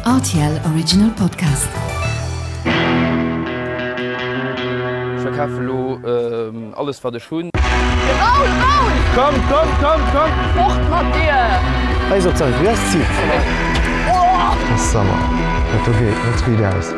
Rtl Original Podcast. Ech verkafe lo alles wat ech hunn. Raoul, Raoul! Komm, komm, komm, komm! Fort mat dir! Hei ass op d'Säit, wéi ass d'Zil? Summer, dat do geet net riit aus.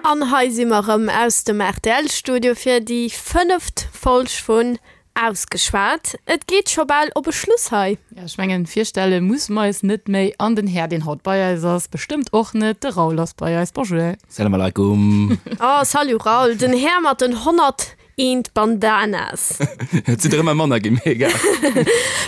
An hei si mer erëm aus dem RTL-Studio fir déi fënneft Folg vun Ausgeschwat. Et geet scho bal op e Schluss hei. Jo, ech mengen, virstelle musse mer eis net méi. An den Här, deen haut bei eis ass, bestëmmt och net. De Raoul ass bei eis. Bonjour. Salam alaikum. Oh, salut Raoul, den Här mat den 101 Bandanas. Et sinn der ëmmer manner ginn, mee egal.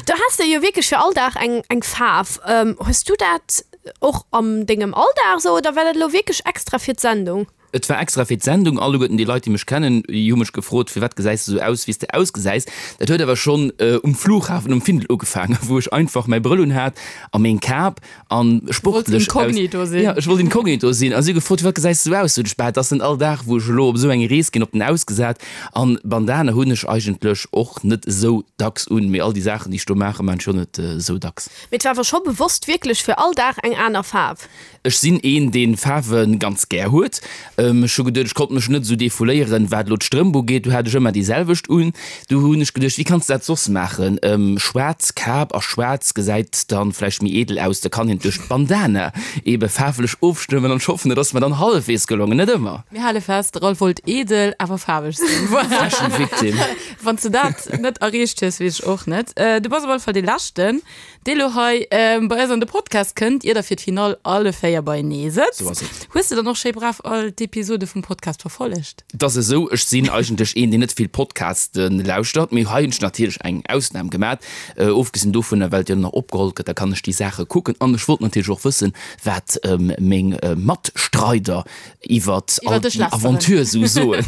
Du has der jo wierklech fir all Dag eng, eng Faarf. Hues du dat och an dengem Alldag esou oder war dat elo wierklech extra fir d'Sendung? Et war extra fir d'Sendung. Alleguerten déi Leit, déi mech kennen, déi hu mech gefrot, Firwat gesäis de sou aus, wéi s de ausgesäis? Dat huet awer schonn um Flughafen um Findel ugefaangen, wou ech einfach mäi Brëll un hat a meng Kap a sportlech aus. Inkognito sinn. Jo, ech wollt inkognito sinn. A si hu gefrot, Firwat gesäis de sou aus? Sot ech, Bah, et ass net all Dag, wou ech elo op esou eng Rees ginn, op den ausgesat. An Bandana hunn ech eigentlech och net esou dacks un, mee all déi Saachen, déi ech do maachen, maachen ech och net esou dacks. Mee et war awer scho bewosst wierklech fir all Dag eng aner Faarf? Ech sinn een deen Faarwen ganz gär huet. Ech hu geduet ech konnt mech net esou defouléieren wat elo d'Strëmp ugeet, do hat ech ëmmer déi selwecht un. Du hunn ech geduecht wéi kanns de dat soss maachen, schwaarz Kap a schwaarz gesäit dann vläicht méi edel aus, da kann een duerch d'Bandana ebe faarflech ofstëmmen an ech hoffen et ass mer dann hallefwees gelongen, net ëmmer. Mir hale fest, de Ralph wollt edel awer faarweg sinn. Voilà. Fashion Victim. Wann s de dat net erreecht hues, weess ech och net. Du bass op alle Fall dee leschten. Dee lo hei bei eis an de Podcast kënnt, ier der fir d'Finall alle 4 beienee sëtzt. Sou ass et. Hues de dann och schéi brav all d'Episode vum Podcast verfollegt? Et ass esou, ech sinn eigentlech een, deen net vill Podcaste lauschtert, mee hei hunn ech natierlech eng Ausnam gemat. Ofgesinn dovunner, well et jo nach opgeholl gëtt, da kann ech déi Saache kucken. An ech wollt natierlech och wëssen, wat meng Matstreider iwwert all déi Aventure sou soen.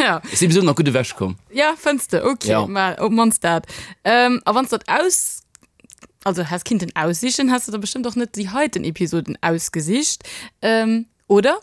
Ja. Ech si bis elo nach gutt ewechkomm. Ja, fënns de? Ok, Ja. ma op d'mannst dat. Ähm, a wann s dat aus, also häss kinnten aussichen, häss de der bestëmmt och net déi heiten Episoden ausgesicht, ähm, oder?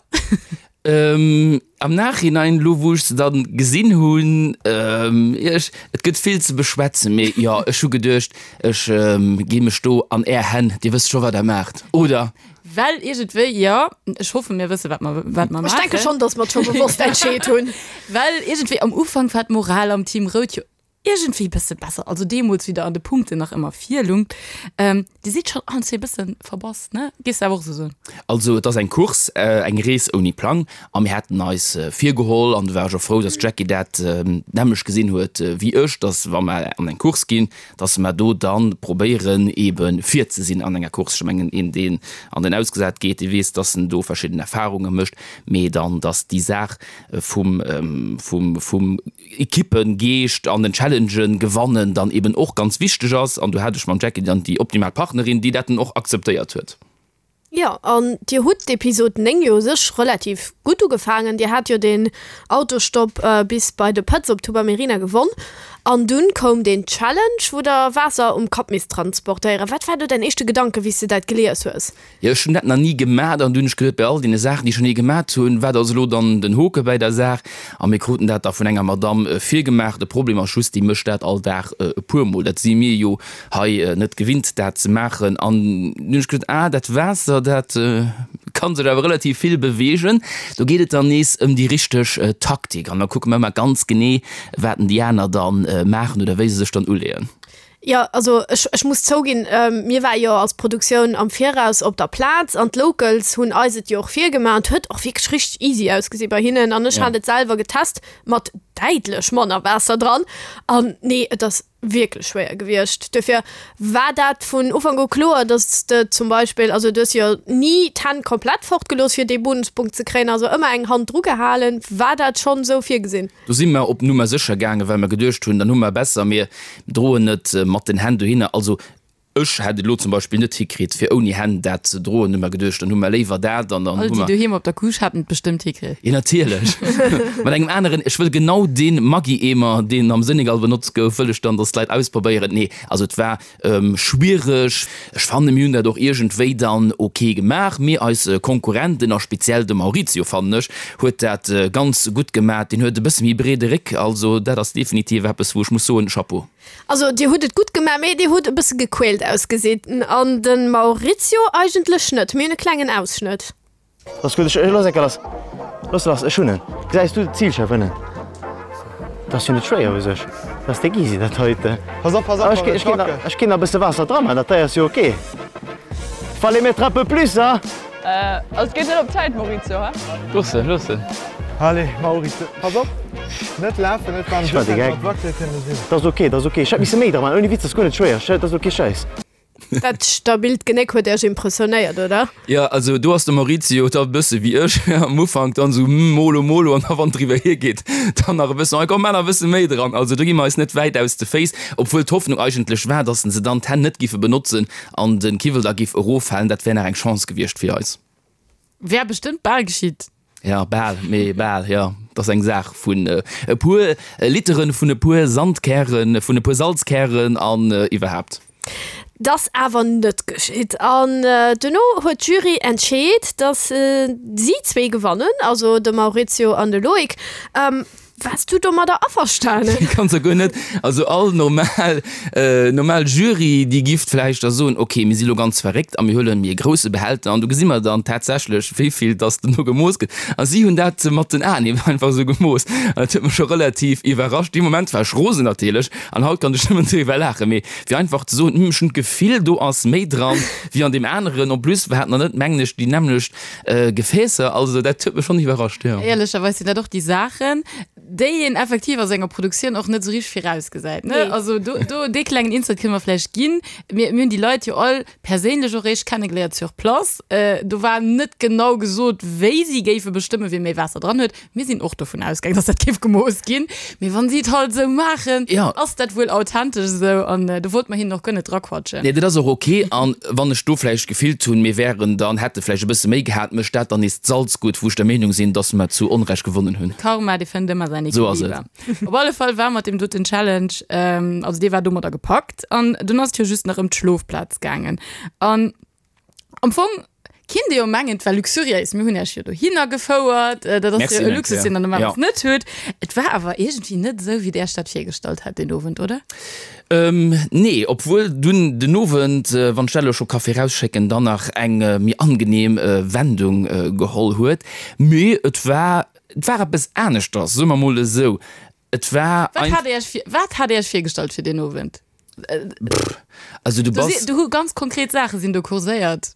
Ähm, am Nachhinein, lo wou ech se dann gesinn hunn, ähm, ech, et gëtt vill ze beschwätzen, mee jo, ech hu geduecht, ech ähm, gi mech do an är Hänn, dir wësst scho wat der maacht, oder? Well iergendwéi, jo, ech hoffen, mir wësse wat mer, wat mer Ech denke maachen. schonn, datt mer et scho bewosst entscheet hunn. Well iergendwéi am Ufank war d'Moral am Team Rout jo iergendwéi e bësse besser, also deemools, wéi der an de Punkten nach ëmmer virlungt. Ähm, Dir sidd schonn allen zwee e bësse verbass, ne? Géifs de awer och esou soen? Also et ass eng Course, eng Rees ouni Plang a mir haten eis virgeholl, an do war ech och frou, datt d'Jackie dat d'nämmlecht gesinn huet wéi ech, datt wa mer an eng Course ginn, dass mer do dann probéieren ebe vir ze sinn an enger Course. Ech mengen, een deen an den Ausgesat geet, dee weess, dass en do verschidden Erfahrunge mécht, mee dann, dass déi Saach vum, vum, vum Ekippengeescht an den Challengen gewannen dann eben och ganz wichteg ass. An do hat ech mam Jackie dann déi optimal Partnerin, déi dat dann och akzeptéiert huet. Jo, an Dir hutt d'Episod 9 jo u sech relativ gutt ugefaangen. Dir hat jo deen Autostopp bis bei de Pëtz op Tubamerina gewonn. An dunn koum deen Challenge, wou der Waasser um Kapp misst transportéieren. Wat war do däin éischte Gedanke wéi s de dat gelies hues? Jo, ech hunn dat nach ni gemat an du hunn ech geduet, bei all deene Saachen, déi ech schon ni gemat hunn, wat ass elo dann den Hoke bäi der Saach? A mir kruten dat da vun enger Madamm virgemaach. De Problem ass just, déi mécht dat all Dag e puermol. Dat si mir jo hei net gewinnt dat ze maachen an dunn hunn ech gesot, ah dat Waasser dat ka sech awer relativ vill beweegen, do geet et dann nees ëm déi richteg Taktik an da kucke mer ëmmer ganz genee wat denn déi aner da maachen oder wéi se sech dann uleeën. Jo, also ech, ech muss zouginn, mir ware jo als Produktioun am Viraus op der Plaz an d'Locals hunn eis et jo och virgemaach an et huet och wierklech richteg easy ausgesi bei hinnen an ech hat et selwer getest mat däitlech manner Waasser dran an nee, et ass wierklech schwéier gewiescht. Duerfir war dat vun Ufank u kloer, dass de zum Beispill, also du hues jo ni d'Hänn komplett fortgelooss fir dee Bonuspunkt ze kréien, also ëmmer eng Hand dru gehalen. War dat schonn esou virgesinn? Do si mer op Nummer sécher gaangen, well mer geduecht hunn, dann hu mer besser, mir droen et mat den Hänn dohinner. Also Ech hätt et elo zum Beispill net hikritt fir ouni Hänn dat ze droen, hu mer geduecht, dann hu mer léiwer dat an dann All hu déi mer. doheem op der Couche haten et bestëmmt hikritt. Jo natierlech, mat engem aneren, ech wëll genau dee Maggi-Eemer deen am Senegal benotzt gouf, wëll ech dann, dass d'Leit ausprobéieren. Nee, also et war schwiereg. Ech fannen mir hunn dat och iergendwéi dann ok gemaach, mee eis Konkurrenten a speziell de Maurizio fannen ech huet dat ganz gutt gemaat, deen huet e bësse méi breede Réck, also dat ass definitiv eppes wou ech muss soen, Chapeau. Also dir hutt et gutt gemaach, mee dir hutt e bësse gequält ausgesinn an de Maurizio eigentlech net. Mir hunn e klengen Ausschnëtt. Ass gutt, ech looss enker lass. Looss lass, ech hunn en. Gesäis du d'Zilschärf ënnen? Dat ass jo net schwéier u sech. Dat ass déck easy dat heiten. Pass op, pass op, Ech ech ginn ech ginn nach e bësse Waasser dra man, dat hei ass jo ok. Fallait mettre un peu plus, hein? Also et geet net op d'Zäit, Maurizio, he? Looss en, looss en. Allez, Maurizio, pass op, net lafen, net Ech war de Geck. Dat ass ok, dat ass ok. Ech hätt misse méi dra man, ouni Witz, dat ass guer net schwéier. Dat ass ok, Schäiss. Dat stabilt Genéck huet Iech impressionéiert, oder? Jo, also do ass de Maurizio da e bësse wéi ech am Ufank, dann esou hm, molo molo an da wann et driwwer hiergeet, dann nach e bëssen, oh komm, maach nach e bësse méi dran. Also do gi mer eis net wäit aus de Féiss, obwuel d'Hoffnung eigentlech war, dass se dann d'Hänn net giffe benotzen an de Kiwwel da giff eroffalen. Dat wär nach eng Chance gewiescht fir eis. Wär bestëmmt bal geschitt. Ja, bal, mee bal, jo. Et ass eng Saach vun e puer Literen, vun e puer Sandkären, vun e puer Salzkären an iwwerhaapt. 't ass awer net geschitt an duerno huet d'Jury entscheet, datt si zwee gewannen, also de Maurizio an de Loïc. Waars du domadder averstanen? Ganz a guer net. Also all normal, normal Jury, déi giff vläicht da soen, ok, mir si lo ganz verréckt a mir huelen méi e grousse Behälter an do gesi mer dann tatsächlech, wéi vill dass duerno gemooss gëtt. A si hunn dat mat den Aen eben einfach esou gemooss. An dat huet mech scho relativ iwwerrascht. Dee Moment war ech rosen natierlech an haut kann ech nëmmen driwwer laachen. Mee fir einfach ze soen, hm, ech hunn d'Gefill, do ass méi dran wéi an deem aneren. En plus hat mer net, mengen ech, déi nämmlecht Gefäässer, also dat huet mech schonn iwwerrascht, jo. Éierlecherweis sinn dat och déi Saachen, déi een effektiv a senger Produktioun och net esou richteg virausgesäit, ne? Nee. Also do, do dee klengen Insight kënne mer vläicht ginn. Mir, mir hunn déi Leit jo all perséinlech och réischt kennegeléiert sur place. Do war net genau gesot, wéi si géife bestëmmen, wie méi Waasser dran huet. Mir sinn och dovun ausgaangen, dass dat géif gemooss ginn. Mee wann si et halt esou maachen, Ja. ass dat wuel authentesch esou. An do wollte mer hinnen och guer net draquatschen. Nee, dat ass och ok. An wann ech do vläicht gefillt hunn, mir wären dann, hätte vläicht e bësse méi gehat, mécht dat dann nees d'Salz gutt, wou ech der Meenung sinn, dass mer zu Onrecht gewonnen hunn. Karma, dee fënnt ëmmer säin Esou ass et. Equiliber. Op alle Fall war mat deem doten Challenge, also dee war domadder gepackt. An dunn ass et jo just nach ëm d'Schlofplaz gaangen. An Am Fong kinnt ee jo mengen, et war luxuriéis. Mir hunn Iech jo dohinner gefouert. Dat ass jo e Luxus, deen Der normalerweis net hutt. Et war awer iergendwéi net esou, wéi Der Iech dat virgestallt hat deen Owend, oder? Nee, obwuel dunn den Owend, wann ech dat elo scho ka virausschécken, dann nach eng méi angenehm Wendung geholl huet. Mee et war, et war eppes aneschters, soe mer mol esou. Et war Wat hat Dir Iech vir, wat hat Dir Iech virgestallt fir deen Owend? Also du Do si, bass. do hu ganz konkret Saache sinn do kurséiert.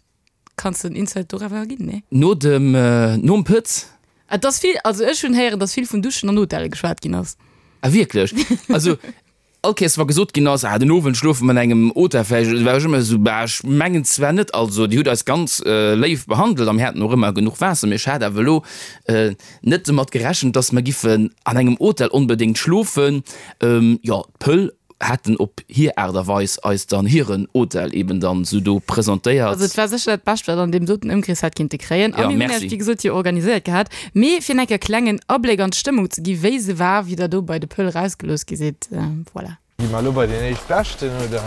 Kanns de en Insight doriwwer ginn? Nee? No dem, nom Pëtz. Et ass vill, also ech hunn héieren, datt vill vun Duschen an Hotelle geschwat ginn ass. Ah wierklech? Also all Kéiers wa gesot ginn ass, ah den Owend schlofe mer an engem Hotel vläicht, war ech ëmmer esou, bah ech mengen zwar net. Also Dir hutt eis ganz léif behandelt a mir haten och ëmmer genuch Waasser, mee ech hat awer elo net domat gerechent, dass mer giffen an engem Hotel onbedéngt schlofen. Jo, d'Pöll hätten op hir Aart a Weis eis dann hiren Hotel eben dann sou do presentéiert. Also et war sécher dat Bescht, wat an deem doten Ëmkrees hätt kinnte kréien. A Ja, mir hunn merci. Iech, wéi gesot, jo organiséiert gehat. Mee fir enker klengen Abléck an d'Stëmmung ze gi, wéi se war, wéi der do bei de Pëll rausgelooss gi sidd. Voilà. Gi mer elo bei deen éischtbeschten, oder?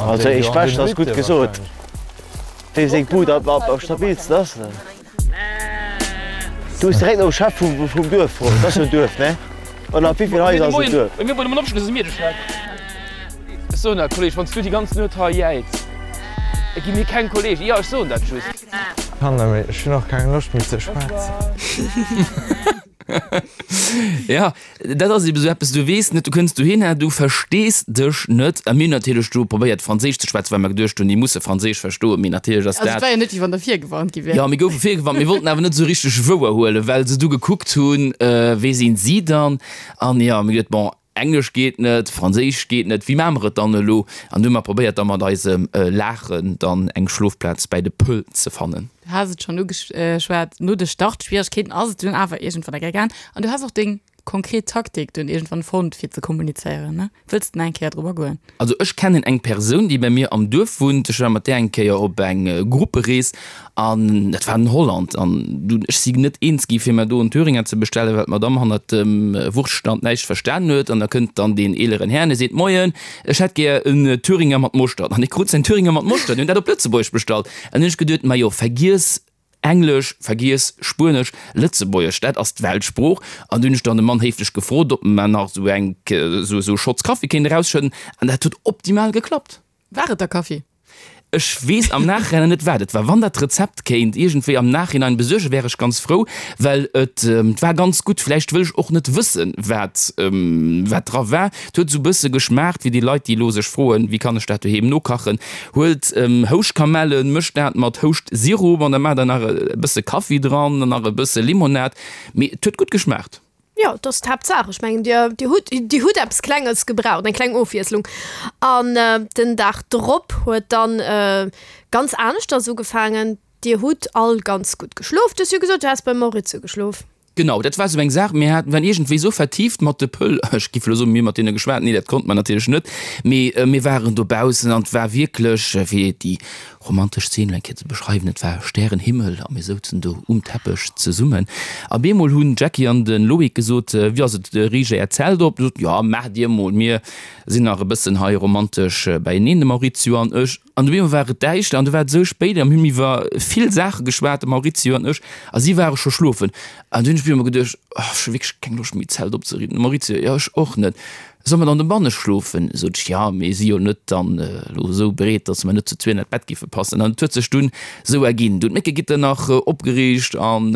Also éischtbeschten ass gutt gesot. Wéi seng Bud am stabilsten ass. Du hues direkt nom Chef vum Duerf froen. Dat ass jo en Duerf, ne? Oder ab wéi vill Haiser ass en Duerf? Ech soen dat, Kolleg, wann s du déi ganz Nuet hei jäiz, da gi mir keng Kolleegen. Jo, ech soen dat just. Kann net méi, ech hunn och keng Loscht méi ze schwätzen. Ja, dat ass eben esou eppes, du weess net, du kënns dohinner, du verstees dech net. A mir hunn natierlech do probéiert Franséisch ze schwätzen, well mer geduecht hunn, déi musse Franséisch verstoen, mee natierlech ass Also et dat. war jo net, wéi wann der virgewarnt gi wier. Jo, mir goufe virgewarnt, mir wollten awer net esou richteg wouer huelen, well se du gekuckt hunn, wee sinn si dann? An jo, mir geduet, bon, Englesch geet net, Franséisch geet net, wéi maache mer et dann elo? An du hu mer probéiert da mat eisem Laachen dann eng Schlofplaz bäi de Pëll ze fannen. Du has et schonn ugeschwat, no de Startschwieregkeeten ass et dunn awer iergendwann eng Kéier gaang an du has och deng konkret Taktik dunn iergendwann fonnt fir ze kommunizéieren, ne? Wëlls de nach eng Kéier drop agoen? Also ech kennen eng Persoun, déi bei mir am Duerf wunnt. Ech war mat där eng Kéier op eng Grupperees An dat war an Holland. An dunn, ech si net eens gi fir mer do en Thüringer ze bestellen, well d'Madame hannert dem Wurschtstand näischt verstanen huet. An da kënnt dann deen eeleren Här an e seet, Moien, ech hätt gär en Thüringer mat Moschtert. An e krut säin Thüringer mat Moschtert. Mir hunn dat op Lëtzebuergesch bestallt. An hunn ech geduet, Majo, vergiess. Englesch, vergiess, Spuenesch, Lëtzebuergesch, dat ass d'Weltsprooch. An du hunn ech dann de Mann héiflech gefrot, ob mer nach esou eng, esou e Schotz Kaffi kéint erausschëdden. An dat huet optimal geklappt. War et da Kaffi? Ech weess am Nachhinein net wat et war. Wann dat Rezept kéint iergendwéi am Nachhinein besuergen, wär ech ganz frou, well et war ganz gutt. Vläicht wëll ech och net wëssen, wat wat dra war. Et huet esou bësse geschmaacht wéi déi Leit, déi elo sech froen, wéi kann ech dat doheem nokachen. Huelt Houschkamellen, mëscht dat mat Houscht-Sirup an da maacht der nach e bësse Kaffi dran an nach e bësse Limonad. Mee et huet gutt geschmaacht. Jo, dat ass d'Haaptsaach. Ech mengen, Dir, Dir hutt, Dir hutt eppes Klenges gebraucht, eng kleng Ofwiesslung. An den Dag drop huet dann ganz aneschters ugefaangen. Dir hutt all ganz gutt geschlof. Du hues jo gesot, du häss beim Maurizio geschlof. Genau, dat war esou eng Saach. Mir haten, waren iergendwéi esou vertieft mat de Pëll, ech giff elo soen, mir hu mat deene geschwat, nee, dat konnte mer natierlech net, mee mir waren dobaussen an et war wierklech, fir déi romantesch Zeen elo eng Kéier ze beschreiwen, et war Stärenhimmel a mir souzen do um Teppech zesummen. A bemol hunn d'Jackie an de Loïc gesot, Wéi ass et, riicht Äert Zelt op? Mir soten, Jo, maacht Dir mol, mir sinn nach e bëssen hei romantesch beieneen, de Maurizio an ech. An op eemol war et däischter an du war et esou spéit a mir hunn iwwer vill Saache geschwat, de Maurizio an ech, a si ware scho schlofen. An du hunn ech op eemol geduecht, Oh, ech hu wierklech keng Loscht méi d'Zelt opzeriichten. De Maurizio, Jo, ech och net. Solle mer dann dobanne schlofen? Sot ech, Jo, mir si jo net dann elo esou breet, datt mer net zu zwee an dat Bett giffe passen. An et huet sech dunn esou erginn. Du hunn d'Méckegitter nach opgeriicht an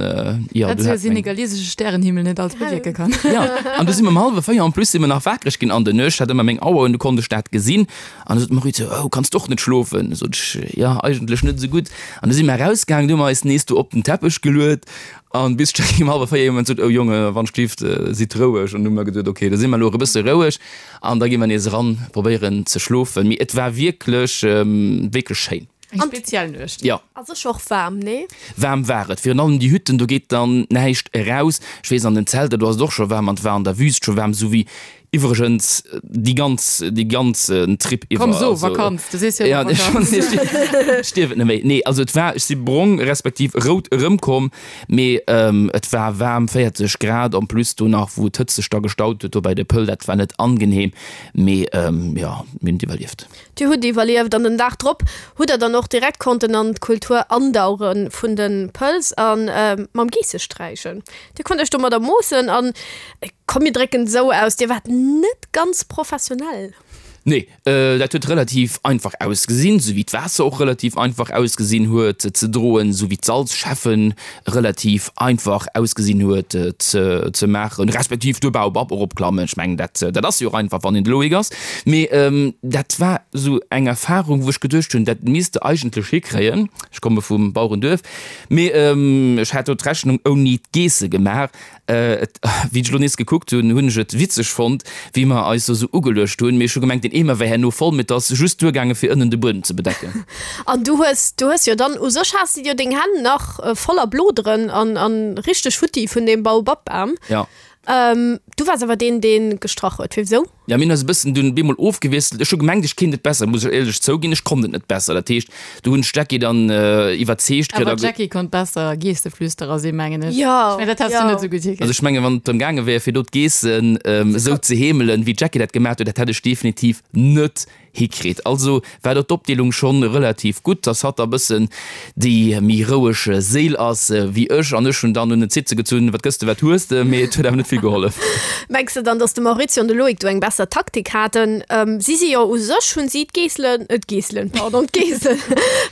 jo, du hat meng. Senegalesesche Stärenhimmel net alles bewierke kann. Jo, an du si mer um hallwe 4 en plus si mer nach wakereg ginn an der Nuecht. Hat ëmmer meng Auer un, du konnt ech dat gesinn. An du sot d'Maurizio, Oh, kanns de och net schlofen? Sot ech, Jo, eigentlech net esou gutt. An du si mer erausgaangen, du hu mer eis nees do op den Teppech geluet. An bis d'Jackie um hallwer 4 iergendwann sot, Oh Jonge, wann schlift, sidd roueg. An du hu mer geduet, Ok, da si mer elo och e bësse roueg an da gi mer nees eran, probéieren ze schlofen. Mee et war wierklech, wierklech schéin. Eng speziell Nuecht. Jo. A sécher och waarm, nee? Waarm war et. Virun allem déi Hütten, do geet dann näischt eraus. Ech weess, an den Zelter, do ass et och scho waarm an et war an der Wüst scho waarm, esou wéi Iwwregens déi ganz, déi ganzen Trip iwwer. Komm so, Vakanz, du sees jo ëmmer Vakanz. Ech dierf et net méi. Nee, also et war, ech si brong respektiv rout erëmkomm, mee et war waarm, 40 Grad, en plus do nach wou d'Hëtzt sech da gestaut huet do bei de Pëll, dat war net angenehm, mee jo, mir hunn et iwwerlieft. Dir hutt iwwerlieft an den Dag drop hutt der dann och direkt konnten an d'Kultur andauche vun de Pëls a mam Geesse sträichen. Dir konnt iech domadder moossen an Komm mir drécken et esou aus, Dir waart net ganz professionell. Nee, dat huet relativ einfach ausgesinn, sou wéi d'Waasser och relativ einfach ausgesinn huet ze droen, sou wéi d'Salzschäffen relativ einfach ausgesinn huet ze maachen, respektiv de Baobab eropklammen. Ech mengen, dat dat ass jo och einfach, wann een de Loïc ass. Mee dat war esou eng Erfarung, wou ech geduecht hunn, dat misst de eigentlech hikréien. Ech komme vum Bauerenduerf, mee ech hat do d'Rechnung ouni d'Geesse gemaach. Et, wéi ech elo nees gekuckt hunn, hunn ech et witzeg fonnt, wéi mer eis do sou ugeluecht hunn. Mee ech hu gemengt, deen Eemer wär herno voll, mee et ass just duergaange fir ënnen de Buedem ze bedecken. An du hues, du hues jo dann, u sech has de jo deng Hänn nach voller Bloderen an, an richteg futti vun deem Baobab-Bam. Ja. Du waars awer deen, dee gestrach huet. Firwisou? Ja, mir hunn eis e bëssen dunn bemol ofgewiesselt. Ech hu gemengt, ech kéint et besser, muss ech éierlech zouginn. Ech konnt et net besser. Dat heescht, do hunn ech d'Jackie dann iwwerzeegt kritt. Awer d'Jackie konnt besser Geesteflüsterer sinn, mengen ech. Jo, Ech mengen, dat häss du net esou gutt hikritt. Also ech mengen, wann et drëm gaange wär, fir do d'Geessen esou ze heemelen, wéi d'Jackie dat gemaach huet, dat hätt ech definitiv net hikritt. Also war do d'Opdeelung schonn relativ gutt, dass hatt da bëssen déi méi roueg Séil ass wéi ech an ech hunn dann un den Zitze gezunn, wat gëss de, wat hues de, mee et huet awer net vill gehollef. Mengs de dann, dass de Maurizio an de Loïc do eng besser Taktik haten? Si si jo u sech, hunn si d'Geesselen, d'Geesselen, pardon, d'Geessen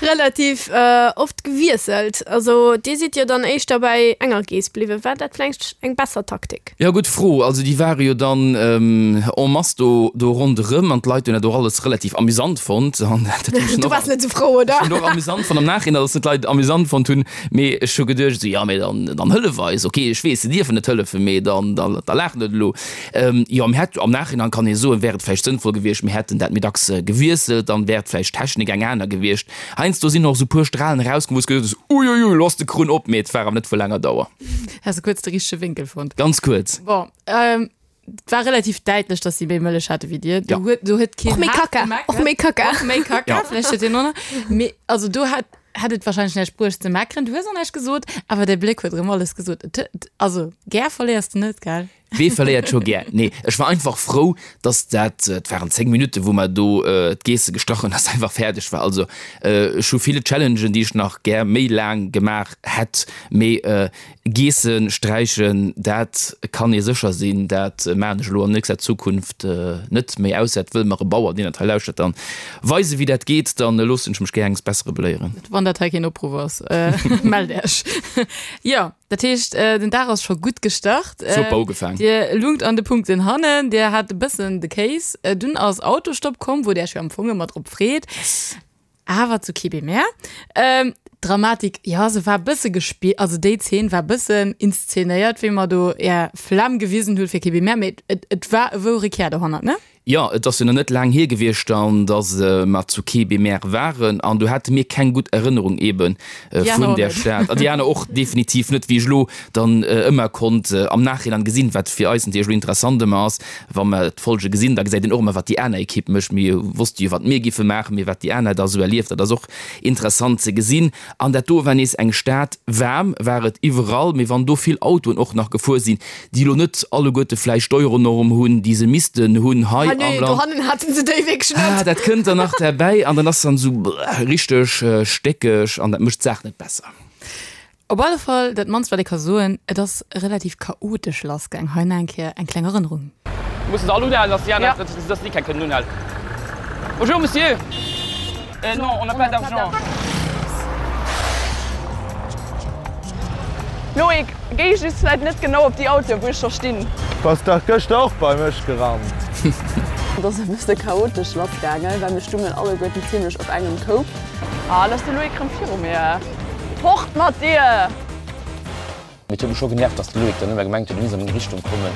relativ oft gewiesselt. Also dir sidd jo dann éischter bäi enger Geess bliwwen. War dat vläicht eng besser Taktik? Jo, gutt Fro. Also déi ware jo dann en masse do do ronderëm an d'Leit hunn dat och alles relativ amüsant fonnt. An dat hunn ech Du och waars net esou frou, oder? Ech hunn och amüsant fonnt am Nachhinein, datt et d'Leit amüsant fonnt hunn. Mee ech hu geduecht esou, jo mee dann dann hëllef eis. Ok, ech weess, se dierfen net hëllefen, mee dann da da laach net elo. Jo, mir hätt am Nachhinein kann ee soen, wär et vläicht sënnvoll gewiescht, mir hätten dat méi dacks gewiesselt, dann wär vläicht d'Technik eng aner gewiescht. Heiansdo sinn och esou puer Stralen erauskomm, wou s geduecht hues, uiuiui, elo ass de Krunn op, mee et war awer net vu laanger Dauer. Has de kuerz de richtege Wénkel fonnt? Ganz kuerz. Bon, ähm, et war relativ däitlech, dass si méi Mëllech hate wéi dir. Do Ja. huet, do huet keen Och méi haart Kacka. gemeckert. Och méi Kacka. Och méi Kacka, Ja. vläicht huet deen och nach. Mee also do hat, hätt et wahrscheinlech näischt bruecht ze meckeren. Du hues och näischt gesot, awer däi Bléck huet erëm alles gesot. Et huet, also gär verléiers de net, gell? Wee verléiert scho gär? Nee, ech war einfach frou, dass dat, et waren 10 Minutten, wou mer do d'Geesse gestrach hunn, dass einfach fäerdeg war. Also ech hu ville Challengen, déi ech nach gär méi laang gemaach hätt, mee Geesse sträichen, dat kann ee sécher sinn, dat maachen ech elo an nächster Zukunft net méi, ausser et wëll mer e Bauer, deen dat hei lauschtert, dann weisen, wéi dat geet, dann loossen ech mech gär enges Bessere beléieren. Wann dat hei keen Opruff ass, mellt Iech. Jo. Dat heescht, den Dag ass scho gutt gestart. Super ugefaang. Dir lungt an de Punkten hannen, Dir hat e bëssen de Kéis. Dunn ass Autostopp komm, wou Dir Iech jo am Fong ëmmer drop freet. Yes. Awer zu Kébémer. D'Dramatik, jo, se war e bësse gespillt, also déi Zeen war e bëssen inszenéiert, wéi mer do Är Flam gewisen hutt fir Kébémer, mee et, et war e wouere Kär dohannert, ne? Jo, et ass jo nach net laang hier gewiescht dann, dass mer zu Kébémer waren an do hate mir keng gutt Erënnerung eebe vun där Stad. An déi aner och definitiv net, wéi ech elo dann ëmmer konnt am Nachhinein gesinn, wat fir eis natierlech elo interessant ëmmer ass, wa mer d'Folge gesinn, da gesäit een och ëmmer, wat déi aner Ekipp mécht. Mir wosste jo, wat mir giffe maachen, mee wat déi aner da sou erlieft, dat ass och interessant ze gesinn. An dat do war nees eng Stad, waarm war et iwwerall, mee wann do vill Autoen och nach gefuer sinn, déi elo net alleguerte vläicht d'Euronorm hunn, déi se missten hunn hei am Land. Dohannen haten se déi wierklech net. Ah, dat kënnt dann nach derbäi an dann ass dann esou richteg stéckeg an dat mécht d'Saach net besser. Op alle Fall, dat mannst wat ee ka soen, et ass relativ chaotesch lassgaang. Hei nach eng Kéier eng kleng Erënnerung. Mussen se all unhalen, dass déi aner, dass déi keng kënnen unhalen. Bonjour Monsieur! Non, on n'a pas d'argent. Loïc, géi just vläit net genau op déi Autoen, wou ech scho stinn. Bass dach gëschter och bei mech gerannt. Et ass e bësse chaotesch lass gaangen, well mir stungen alleguerten zimlech op engem Koup. Ah, lo ass de Loïc rëm viru mir. Fort mat dir! Mee et huet mech scho genervt, dass de Loïc dann ëmmer gemengt huet, e misst a meng Richtung kommen.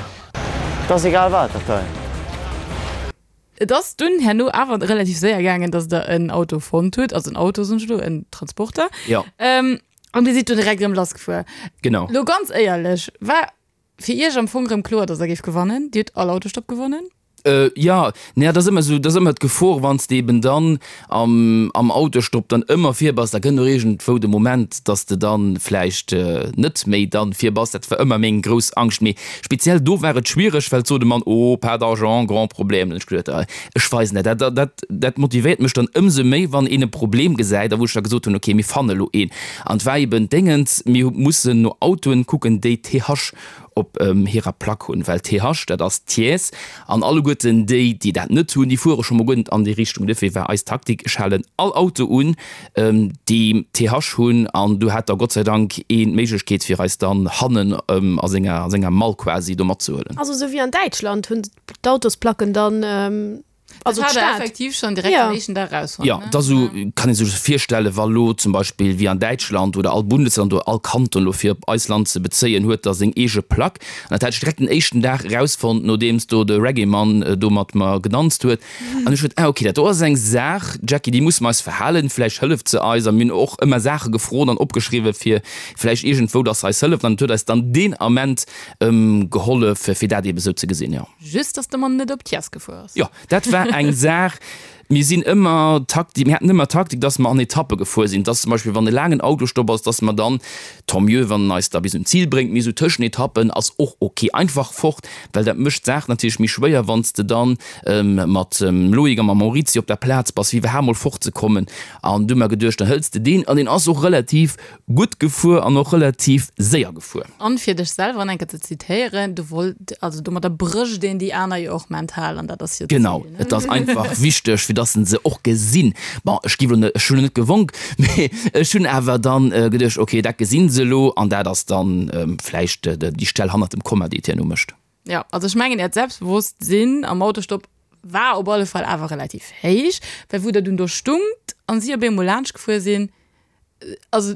't ass egal wat, dat hei. Et ass dunn herno awer relativ séier gaangen, dass der en Auto fonnt hutt, also en Auto soen ech elo, en Transporter. Jo. An dir sidd dunn direkt erëm lassgefuer. Genau. Lo ganz éierlech, war fir iech am Fong erëm kloer, dass der géift gewannen? Dir hutt all Autostopp gewonnen? Jo, naja, dat ass ëmmer esou, dat ass ëmmer d'Gefor, wann s de eben dann am, am Autostopp dann ëmmer vir bass, da kënnt och iergendwou de Moment, dass de dann vläicht net méi dann vir bass. Dat war ëmmer meng grouss Angscht. Mee speziell do war et schwiereg, well sot de Mann, Oh, pas d'argent, grand problème. Dann hunn ech geduet, Ah, ech weisen dat. Dat, dat, dat motivéiert mech dann ëmsou méi, wann een e Problem gesäit a wou ech da gesot hunn, Okay, mir fanne elo een. An et war eben d'Déngens, mir hu mussen no Autoen kucken, déi TH op hirer Plack hunn, well TH, dat ass Thiès, an alleguerten déi, déi dat net hunn, déi fuere scho mol guer net an déi Richtung. Duerfir war eis Taktik, ech halen all Auto un, déi TH hunn, an du hat da Gott sei Dank een d'Méiglechkeet, fir eis dann hannen a senger, a senger Mall quasi do matzehuelen. Also esou wéi an Däitschland hunn d'Autosplacken dann Also dat hat er effektiv schon direkt ja. am éischten Dag rausfonnt. Ja, da so kann ee sech virstellen, wa lo zum Beispill wéi an Däitschland oder all Bundesland oder all Kanton lo fir op eist Land ze bezéien huet da seng eege Plack. An dat hat ech direkt den éischten Dag erausfonnt, nodeems do de Reggae-Mann do mat mer gedanzt huet. An ech huet, ah okay, dat do ass eng Saach, Jackie, déi musse mer eis verhalen, vläicht hëlleft se eis. A mir hunn och ëmmer Saache gefrot an opgeschriwwen, fir vläicht iergendwou, dass se eis hëlleft. An et huet eis dann deen Ament gehollef, fir dat eebe sou ze gesinn, jo. Just, dass de Mann net op d'Chiers gefuer ass. Jo, dat war eng Saach. Mir sinn ëmmer Taktik, mir haten ëmmer Taktik, dass mer an Etappe gefuer sinn, dass zum Beispill, wann e laangen Autostopp ass, dass mer dann, tant mieux, wann en eis da bis un d'Zil bréngt, mee esou Tëschenetappen ass och ok, einfach fort, well dat mécht d'Saach natierlech méi schwéier, wann s de dann mat dem Loïc a mam Maurizio op der Plaz bass, fir iwwerhaapt mol fortzekommen. An du hu mer geduecht, dann hëls de deen, an deen ass och relativ Gutt gefuer an och relativ séier gefuer. An fir dech selwer nach eng Kéier ze zitéieren, du wollt, also domadder brécht een déi aner jo och mental an dat ass jo d'Zil, Genau, ne? et ass einfach wichteg, fir dass se se och gesinn. Bon, ech gi lo net, ech hunn lo net gewonk, mee ech hunn awer dann geduecht, okay, dat gesinn se elo an dat ass dann vläicht déi Stell hannert dem Komma, déi et herno mécht. Jo, also ech mengen äert Selbstbewosstsinn am Autostopp war op alle Fall awer relativ héich, well wou der dunn do stungt an si op eemol laanscht gefuer sinn, also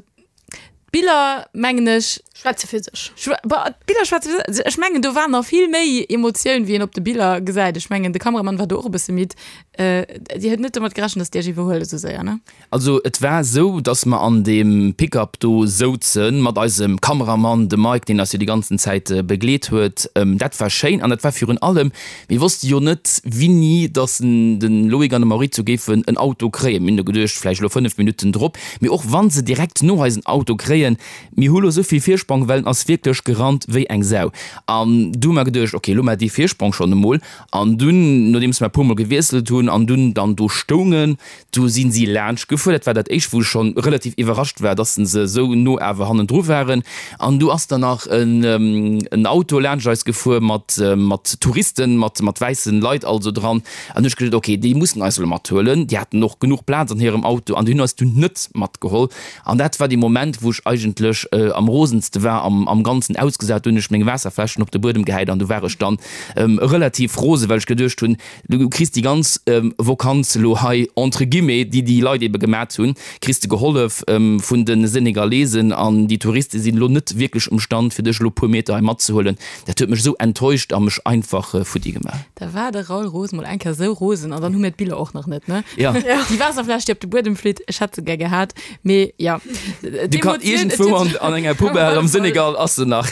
d'Biller mengen ech. Schwätze fir sech. D'Biller schwätze fir sech. Ech mengen do war nach vill méi Emotioun wéi een op de Biller gesäit. Ech mengen de Kameramann war do och e bësse midd. Dir huet net domat gerechent, datt déi iech iwwerhuelen esou séier, ne? Also et war esou, dass mer an deem Pick-up do souzen, mat eisem Kameramann, dem Mike, deen eis jo déi ganzen Zäit begleet huet. Dat war schéin an dat war virun allem, mir wosste jo net wini dass de Loïc an de Maurizio géifen en Auto kréien. Mir hunn do geduecht, vläicht elo 5 Minutten drop. Mee och wa se direkt no eis en Auto kréien, mir hu lo esou vill Virsprong. Virsprong, well en ass wierklech gerannt wéi eng Sau. An du hu mer geduecht, ok, elo hu mer dee Virsprong schonn emol. An dunn, nodeems mer e puermol gewiesselt hunn an dunn dann do stoungen, du si si laanscht gefuer. Dat war dat éischt, wou ech schonn relativ iwwerrascht war, dass se esou no awer hannendru waren. An du ass dann nach en Auto laanscht eis gefuer mat mat Touristen, mat mat wäissen Leit also dran. An hu ech geduecht, ok, déi mussen eis elo mathuelen. Déi haten och genuch Plaz an hirem Auto an déi hunn eis dunn net matgeholl. An dat war dee Moment, wou ech eigentlech am rosenste war, am am Ganzen ausgesat. Du hunn ech meng Waasserfläschen op de Buedem gehäit an du war ech dann relativ rose, well ech geduecht hunn, du kriss déi ganz Vokanz elo hei, entre guillemets, déi déi Leit ebe gemat hunn, kriss de gehollef vun de Senegalesen an déi Touriste sinn elo net wierklech um Stand, fir dech elo puer Meter hei matzehuelen. Dat huet mech esou enttäuscht a mech einfach futti gemaach. Da war de Raoul Roos mol eng Kéier esou rosen an dann hu mir d'Biller och nach net, ne? Ja. Déi Waasserfläsch, déi op de Buedem flitt, ech hätt se gär gehat, mee ja. Du kann iergendwou an, an enger Poubelle am Senegal ass se nach.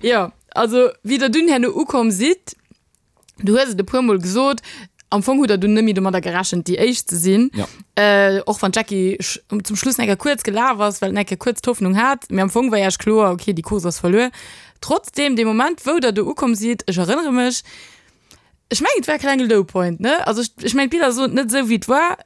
Jo, also wéi der dunn herno ukomm sidd, du hues et e puer Mol gesot, am Fong hutt der dunn net méi domadder gerechent, déi Éischt ze sinn. Ja. Äh, och wann d'Jackie zum Schluss eng Kéier kuerz gelaf ass, well en eng Kéier kuerz d'Hoffnung hat, mee am Fong war Iech kloer, okay, déi Course ass verluer. Trotzdem, dee Moment, wou Der do ukomm sidd, ech erënnere mech, ech mengen, et war e klenge Low Point, ne? Also ech, ech mengen, d'Biller soen et net esou, wéi et war.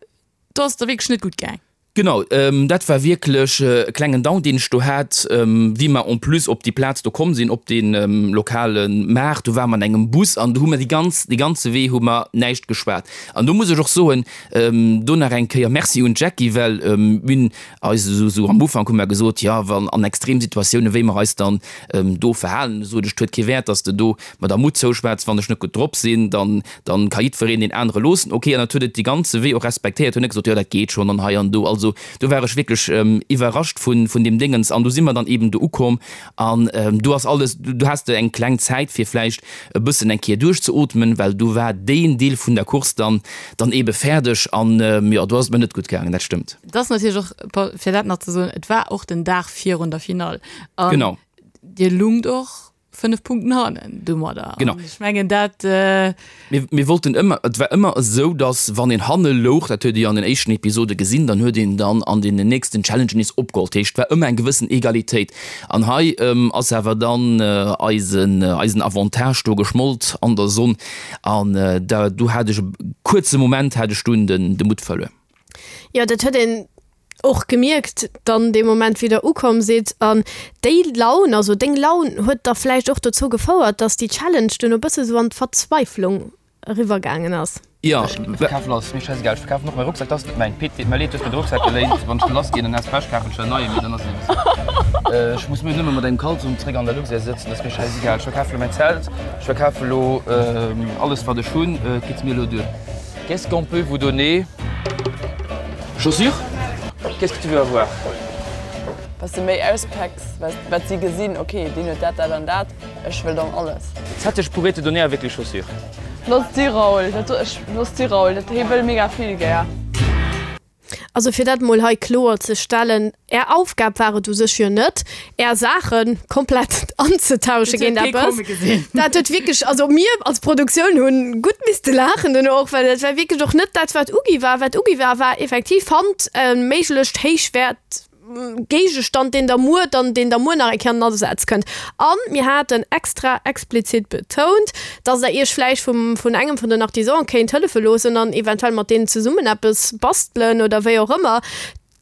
Do ass et der wierklech net gutt gaang. Genau, dat war wierklech e klengen Down, deen ech do hat, wéi mer en plus op déi Plaz do komm sinn, op dee lokale Maart. Do ware mer an engem Bus an do hu mer déi ganz, dee ganze Wee hu mer näischt geschwat. An do muss ech och soen, do nach eng Kéier Merci un d'Jackie, well mir hunn eis esou, esou am Ufank hu mer gesot, jo, wann an Extremsituatiounen, wéi mer eis dann do verhalen, sot ech, et huet kee Wäert, datt s de do mer der Mutt zouschwätz, wann ech net gutt drop sinn, dann Dann ka jiddwereen deen anere loossen. Ok, an dat huet et dee ganze Wee och respektéiert, huet net gesot, jo dat geet schonn an hei an do. Also do war ech wierklech iwwerrascht vun vun deem Déngens. An du si mer dann eben do ukomm an do ass alles, du has de eng kleng Zäit fir vläicht e bëssen eng Kéier duerchzeootmen, well do war deen Deel vun der Course dann dann ebe fäerdeg an jo, do ass et mer net gutt gaangen, dat stëmmt. Et ass natierlech och, fir dat nach ze soen, et war och den Dag virun der Finall an Genau. dir lungt och 5 Punkten hannen domadder. Genau. An ech mengen dat. Äh Mir, mir wollten ëmmer, et war ëmmer esou, datt wann een hanne louch, dat huet ee jo an den éischten Episode gesinn, dann huet een dann an deenen nächsten Challengen nees opgeholl. Dat heescht, et war ëmmer eng gewëssen Egalitéit. An hei ass awer dann eisen, eisen Avantage do geschmolt an der Sonn. An da, do hat ech e kuerze Moment hat ech dunn den, de Mutt verluer. Jo, dat huet een och gemierkt dann dee Moment wéi der ukomm sidd an déi Laun, also deng Laun huet da vläicht och dozou gefouert, dass déi Challenge duerno bësse sou an d'Verzweiflung eriwwer gaangen ass. Jo, ech verkafen alles, mir scheißegal, ech verkafen och mäi Rucksak, dat ass net mäin. Pit, deet mer leed, du hues mir de Rucksak geléint, wann ech do lass ginn, dann has Pech, kafen ech der en neien, mee dann ass et eben esou. Ech muss mir nëmme mat engem Kalzong zréck an der Luxair sëtzen, dat ass mir scheißegal. Ech verkafe lo mäin Zelt, ech verkafe lo alles wat ech hunn, et geet mir elo duer. Qu'est-ce qu'on peut vous donner? Chaussures? Qu'est-ce que tu veux avoir? Wat de méi auspacks, wat si gesinn, ok, deen huet dat, dat an dat, ech wëll dann alles. Ça je pourrais te donner avec les chaussures. Looss si Raoul, dat do, ech, looss si Raoul, dat hee wëll mega vill gär. Also fir dat mol hei kloer ze stellen, Är Aufgab war et u sech jo net, Är Saache komplett anzetausche géint eppes. Dat huet wierklech, also mir als Produktioun hunn gutt misste laachen duerno och, well dat war wierklech och net dat, wat ugi war. Wat ugi war, war effektiv, fannt e méiglecht héichwäert Géigestand, deen der muer dann, deen der muer nach eng Kéier an den Asaz kënnt. A mir haten extra explizit betount, dass der iech vläicht vum, vun engem vun den Artisanen kéint hëllefe loossen an eventuell mat deenen zesummen eppes bastelen oder wéi och ëmmer.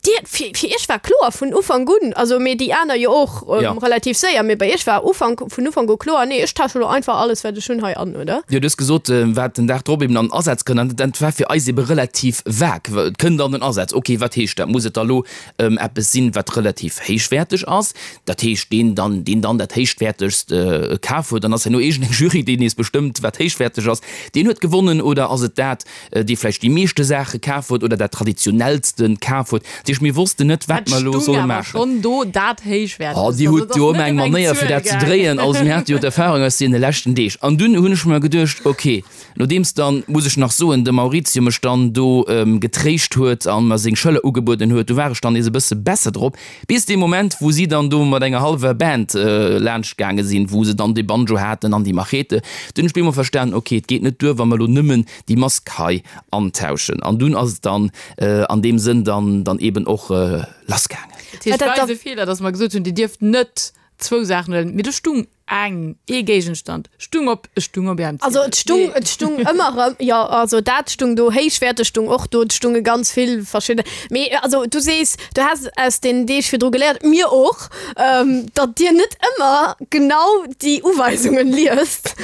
Dir, fir, fir iech war kloer vun Ufank un, also mee déi aner jo och Ja. relativ séier, mee bei iech war Ufank, vun Ufank u kloer, nee ech tausche lo einfach alles wat ech hunn hei an, oder? Jo, du hues gesot, wat den Dag drop eben an den Asaz kënnt, an dat war fir eis ebe relativ vag. Et kënnt an den Asaz, okay, wat heescht dat? Muss et da lo eppes sinn, wat relativ héichwäerteg ass, dat heescht, deen dann, deen dann dat héichwäertegst kaf huet, dann ass herno iergendeng Jury, déi nees bestëmmt, wat héichwäerteg ass, deen huet gewonnen, oder ass et dat, dee vläicht déi meeschte Saache kaf huet oder dat traditionellste kaf huet. Dat heescht, mir wossten net, wat mer elo solle maachen. Schonn do dat héichwäertegst. Oh, Dir hutt jo ëmmer eng Manéier, fir dat ze dréien. Also mir hate jo d'Erfahrung aus deene leschten Deeg. An dunn hunn ech mer geduecht, okay, Nodeems dann, muss ech nach soen, de Maurizio mech dann do getréischt huet an mer seng Schëller ugebueden huet, du war ech dann nees e bësse besser drop, bis dee Moment, wou si dann do mat enger hallwer Band laanscht gaange sinn, wou se dann dee Banjo haten an déi Machete. Dunn hunn ech bemol verstanen, ok, et geet net duer, wa mer elo nëmmen déi Mask hei antauschen. An dunn ass et dann an deem Sënn dann dann eben och lassgaangen. Dat heescht, et war eise Feeler, dass mer gesot hunn, Dir dierft net. Zwou Saachen huelen, mee do stung eng, ee Géigenstand stung op, e stung op ärem Also Ziedel. et stung, et stung ëmmer erëm, jo, also dat stung do, héichwäerteg stung och do, et stunge ganz vill verschidde, mee also du sees, du häss aus den Deeg virdru geléiert, mir och, datt dir net ëmmer genau déi Uweisungen liest.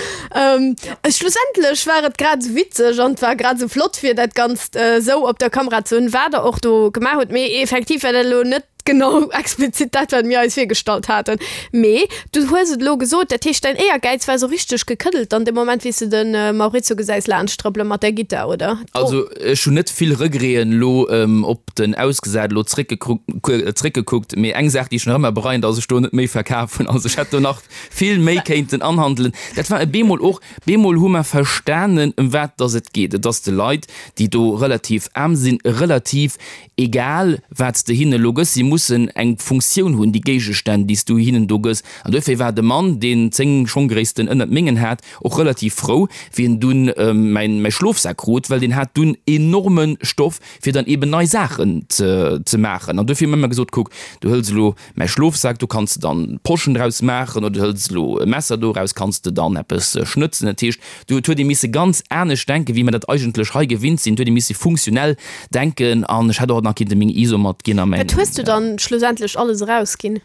Schlussendlech war et grad esou witzeg an et war grad esou flott fir dat Ganzt esou op der Kamera ze hunn, wat der och do gemaach hutt, mee effektiv war dat elo net Genau, explizit dat, wat mir eis virgestallt haten. Mee du hues et elo gesot, dat heescht, däin Éiergäiz war esou richteg gekëddelt dann dee Moment, wéi s de de Maurizio gesäis laanscht trëppele mat där Gittar, oder? Also ech hunn net vill Regreten elo op den Ausgesat elo zréckgekuckt, mee eng Saach, déi ech nach ëmmer bereien, dass ech do net méi verkaf hunn. Also ech hätt do nach vill méi kéinten anhandelen. Dat war e bemol och, bemol hu mer verstanen, ëm wat dass et geet. Et ass de Leit, déi do relativ aarm sinn, relativ Egal wat s de hinne lo gëss, si mussen eng Funktioun hunn, déi Géigestänn, déi s du hinnen do gëss. An duerfir war de Mann, deen 10 Schonggréissten ënnert mengen hat, och relativ frou, wéi en dunn mäin mäi Schlofsak krut, well deen hat dunn enorme Stoff, fir dann eben nei Saachen ze ze maachen. An duerfir hu mir ëmmer gesot, Kuck, du hëls elo Mäi Schlofsak, do kanns de dann Poschen draus maachen oder du hëls elo e Messer doraus, kanns de dann eppes schnëtzen. Dat heescht, do huet ee misse ganz anescht denken, wéi mer dat eigentlech hei gewinnt sinn. Do huet ee misse funktionell denken an ech hätt och nach kinnte meng ISO matginn a mäin. Wat hues du dann schlussendlech alles erausginn?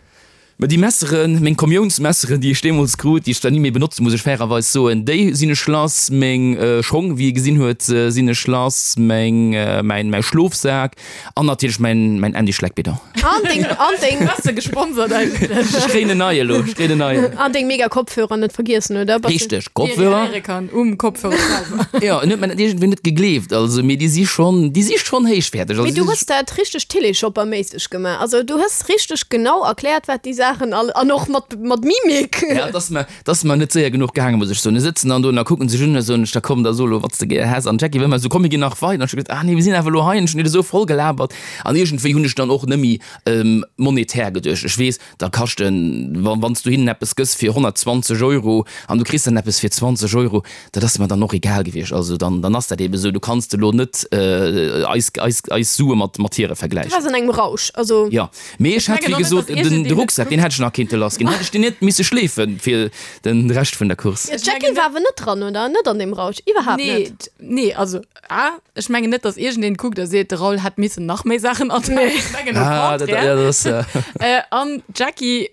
Ma déi Messeren, meng Kommiounsmesseren, déi ech deemools krut, déi ech zwar ni méi benotzen, muss ech fairerweis soen, déi sinn ech lass. Meng Schong, wéi ee gesinn huet, sinn ech lass. Meng, mäin, mäi Schlofsak. An natierlech mäin mäin Andy Schleck-Bidon. An deng, an deng. Bass de gesponsert eigentlech? Ech kréien en neie elo, ech kréien en neien. An deng mega Kopfhörer net vergiessen, oder? Bass de. Richteg, Kopfhörer. Déi ee kann um Kopfhörer selwer. Jo, en huet mer dat iergendwéi net gegleeft, also, mee déi si schonn, déi si schonn héichwäerteg. Mee du hues dat richteg Télé-Shopper-méisseg gemaach. Also du hues richteg genau erkläert, wat déi Saachen all, an och mat, mat Mimik. Ja, et ass mer, 't ass mer net séier genuch gaangen, muss ech soen. Mir sëtzen dann do an da kucken sech un a soen ech, da komm, da so elo, wat s de gär häss. An d'Jackie war ëmmer esou, komm, mir ginn nach weider. An ech hu gesot, ah nee, mir sinn awer elo hei an ech hunn dir esou voll gelabert. An iergendwéi hunn ech dann och net méi monetär geduecht. Ech weess, da kaschten, wa wann s du hinnen eppes gëss fir 120 Euro an du kriss dann eppes fir 20 Euro, dat ass mer dann och egal gewiescht. Also dann, dann ass dat eebe esou. Du kanns elo net eis, eis, eis Sue mat, mat hire Du vergläichen. waars an engem Rausch, also. Jo. Mee ech hätt, wéi gesot, den de Rucksak, deen hätt ech nach kinnte lass ginn. Hätt ech deen net misse schleefe fir de Rescht vun der Course. Jo, d'Jackie war awer net dran, oder? Net an deem Rausch, iwwerhaapt net. Nee, nee, also A, ech mengen net, datt iergendeen kuckt a seet, de Raoul hätt missen nach méi Saachen anpaken. Ech mengen au Ah, dat, contraire. ja, dat ass. An d'Jackie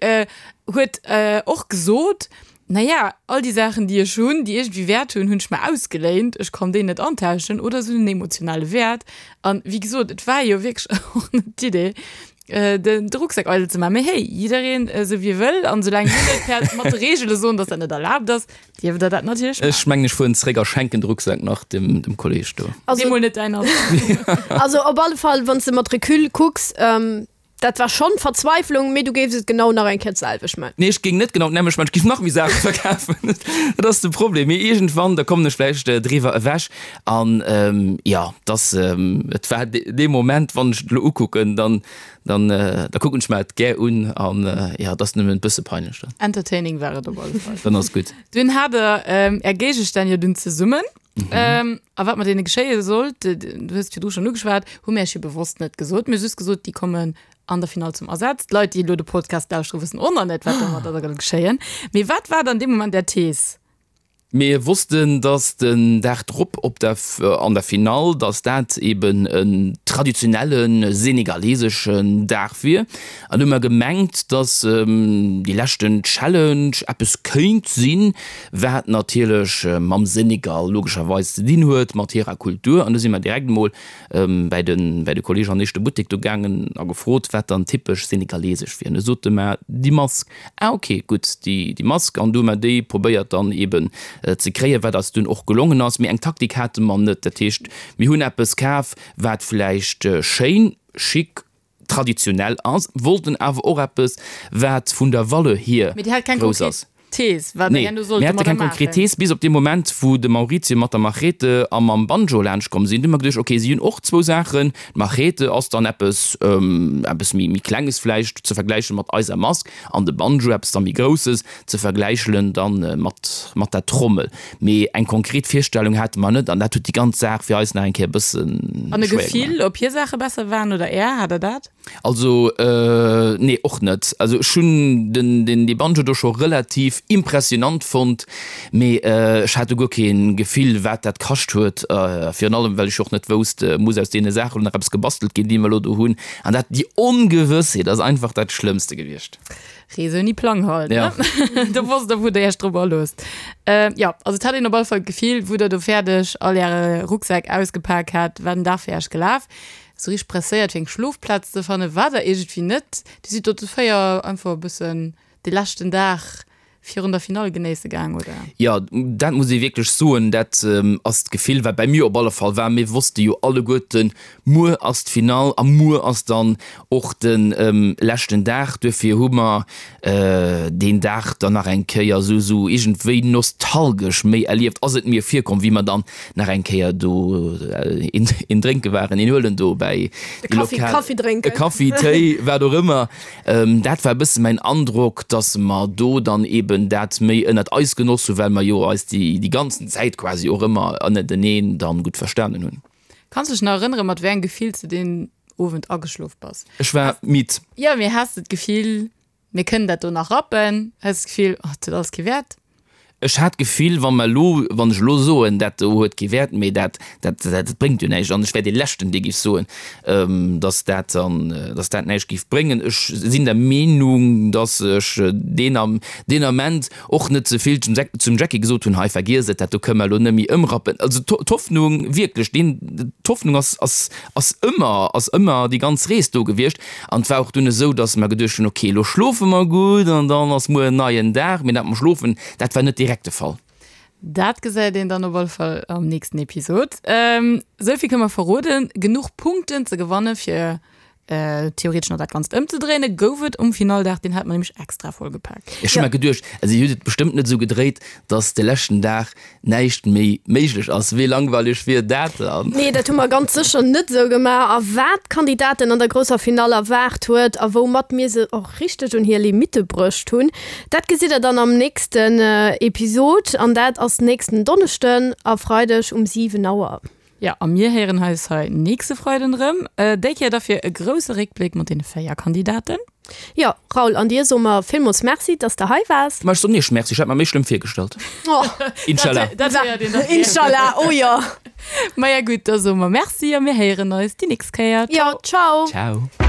huet och gesot, Naja, all déi Saachen, déi ech hunn, déi iergendwéi Wäert hunn, hunn ech mer ausgeléint. Ech kann déi net antauschen oder se hunn en emotionale Wäert. An wéi gesot, et war jo wierklech och net d'Idee, den de Rucksak eidel ze maachen. Mee hey, jiddereen esou wéi e wëll. An soulaang mir net per mat de Reegele soen, dass dat net erlaabt ass, dierft der dat natierlech maachen. Ech mengen, ech fueren zeréck a schenken de Rucksak nach dem dem Kolleeg do. Also, Dee mol net däin ass. also op alle Fall, wann s de mat Recul kucks, Dat war schonn Verzweiflung, mee du géifs et genau nach eng Kéier d'selwecht man. Nee, ech géing net genau d'nämmlecht man, ech géif nach méi Saache verkafen. Dat ass de Problem. Mee iergendwann, da kommen ech vläicht driwwer ewech. An jo, dass, et war dee Moment, wann ech et elo ukucken, dann, dann, da kucken ech mer et gär un. An jo, et ass nëmmen e bësse peinlech dann. Entertaining war et op alle Fall. Dann ass gutt. Dunn hat der Är Géigestänn jo dunn zesummen. Mhm. A wat mat deene geschéie sollt, du hues et virdru schonn ugeschwat, hu mir iech jo bewosst net gesot. Mir hu just gesot, déi kommen an der Finall zum Asaz. D'Leit, déi elo de Podcast lauschteren, wëssen och nach net, wat domadder da soll geschéien. Mee wat war dann dee Moment Är Thees? Mir wossten, dass den Dag drop op der, an der Finall, dass dat eben en traditionelle senegaleseschen Dag wier. An hu mer gemengt, dass déi leschten Challenge eppes kéint sinn, wat natierlech mam Senegal logescherweis ze dinn huet, mat hirer Kultur. An du si mer direkt emol bäi de bäi de Kolleeg an éischte Buttek do gaangen a gefrot, wat dann typesch senegalesesch wier. An du sote mer, déi Mask. Ah ok, gutt, déi déi Mask. An du hu mer déi probéiert dann eeben ze kréien, wat eis dunn och gelongen ass. Mee eng Taktik hate mer net. Dat heescht, mir hunn eppes kaf, wat vläicht schéin, chic, traditionell ass, wollten awer och eppes, wat vun der Valeur hier Mee Dir hat keng grouss konkret ass. Thees, wat Der Nee, herno sollt mir hate domadder keng konkret maachen. Thees, bis op dee Moment, wou de Maurizio mat der Machete a mam Banjo laanschtkomm sinn. Du hu mer geduecht, okay, si hunn och zwou Saachen. D'Machete ass dann eppes, eppes méi, méi Klenges vläicht ze vergläiche mat eiser Mask, an de Banjo eppes da méi Grousses ze vergläichelen dann mat, mat der Trommel. Mee eng konkret Virstellung hate mer net, an dat huet déi ganz Saach fir eis nach eng Kéier e bësse An e schwéier Gefill, gemaach. ob hir Saache besser waren oder Är? Hat Der dat? Also nee och net. Also ech hunn den den dee Banjo do scho relativ impressionant fonnt, mee ech hat do guer kee Gefill wat dat kascht huet, virun allem well ech och net wousst, muss aus deene Saachen elo nach eppes gebastelt ginn déi mer elo do hunn. An dat déi Ongewëssheet ass einfach dat Schlëmmste gewiescht. Rees ouni Plang halt, ne? Do wosst der wou der iech drop aloosst. Jo, also et hat een op alle Fall d'Gefill wou der do fäerdeg all äre Rucksäck ausgepak hat, war den Dag fir iech gelaf. Sou richteg presséiert fir eng Schlofplaz ze fannen war der iergendwéi net. Dir sidd do zu 4 einfach e bëssen de leschten Dag virun der Finall genéisse gaang, oder? Jo, dat muss ee wierklech soen, dat ass d'Gefill wat bei mir op alle Fall war. Mir wosste jo alleguerten, muer ass d'Finall a muer ass dann och de leschten Dag. Duerfir hu mer deen Dag dann nach eng Kéier esou esou iergendwéi nostalgesch méi erlieft, ass et mir virkomm, wéi mer dann nach eng Kéier do een een drénke waren, een huelen do bäi déi Kaffi, lokal, Kaffi drénken. e Kaffi, Téi, wat och ëmmer. Dat war e bësse mäin Androck, dass mer do dann eben dat méi ënnert eis genoss hunn, well mer jo eis déi déi ganzen Zäit quasi och ëmmer ënnerteneen dann gutt verstanen hunn. Kanns dech nach erënneren, mat wéi engem Gefill s de deen Owend ageschlof bass? Ech war midd. Jo, mee has de d'Gefill, mir kënnen dat do nach rappen? Has de d'Gefill, oh, et huet alles kee Wäert? Ech hat d'Gefill, wa mer elo, wann ech elo soen, dat do huet kee Wäert, mee dat, dat, dat bréngt jo näischt, an ech wär dee Leschten, dee géif soen, datt dat dann, datt dat näischt géif bréngen. Ech sinn der Meenung, datt ech deen Am, deen Ament och net ze vill zum, zum Jackie gesot hunn, hei vergiess et, dat do kënnen mer elo net méi ëmrappen. Also d'Hoffnung, wierklech, deen, d'Hoffnung ass, ass, ass ëmmer, ass ëmmer déi ganz Rees do gewiescht. An et war och dunn esou, datt mer geduecht hunn, ok, elo schlofe mer gutt an dann ass muer en neien Dag. Mee dat mam Schlofen, dat war net direkt de Fall. Dat gesäit een dann op alle Fall am nächsten Episod. Esou vill kënne mer verroden, Genuch Punkten ze gewanne fir theoretesch nach dat Ganzt ëmzedréinen, gouf et um Finalldag. Deen hate mer nämlech extra vollgepaakt. Ech hu mer geduecht, also dir hutt et bestëmmt net esou gedréit, datt de leschten Dag näischt méi méiglech ass. Wéi langweileg wier dat dann? Nee, dat hu mer ganz sécher net esou gemaach. A wat d'Kandidaten an der grousser Finall erwaart huet a woumat mir se och richteg un hir Limitte bruecht hunn, dat gesitt der dann am nächsten Episod. An dat ass nächsten Donneschden a Freideg um 7 Auer. Jo, a mir héieren eis hei nächste Freiden erëm. Déi Kéier da fir e grousse Réckbléck mat deene 4 Kandidaten. Jo, Raoul, an dir soe mer villmools Merci, dass de hei waars. Ma ech soen iech Merci, ech hat mer méi schlëmm virgestallt. Inshallah. Dat héiert een da gär. Inshallah, oh jo. Maja gutt, da soe mer Merci a mir héieren eis déi nächst Kéier. Jo, ciao. Ciao.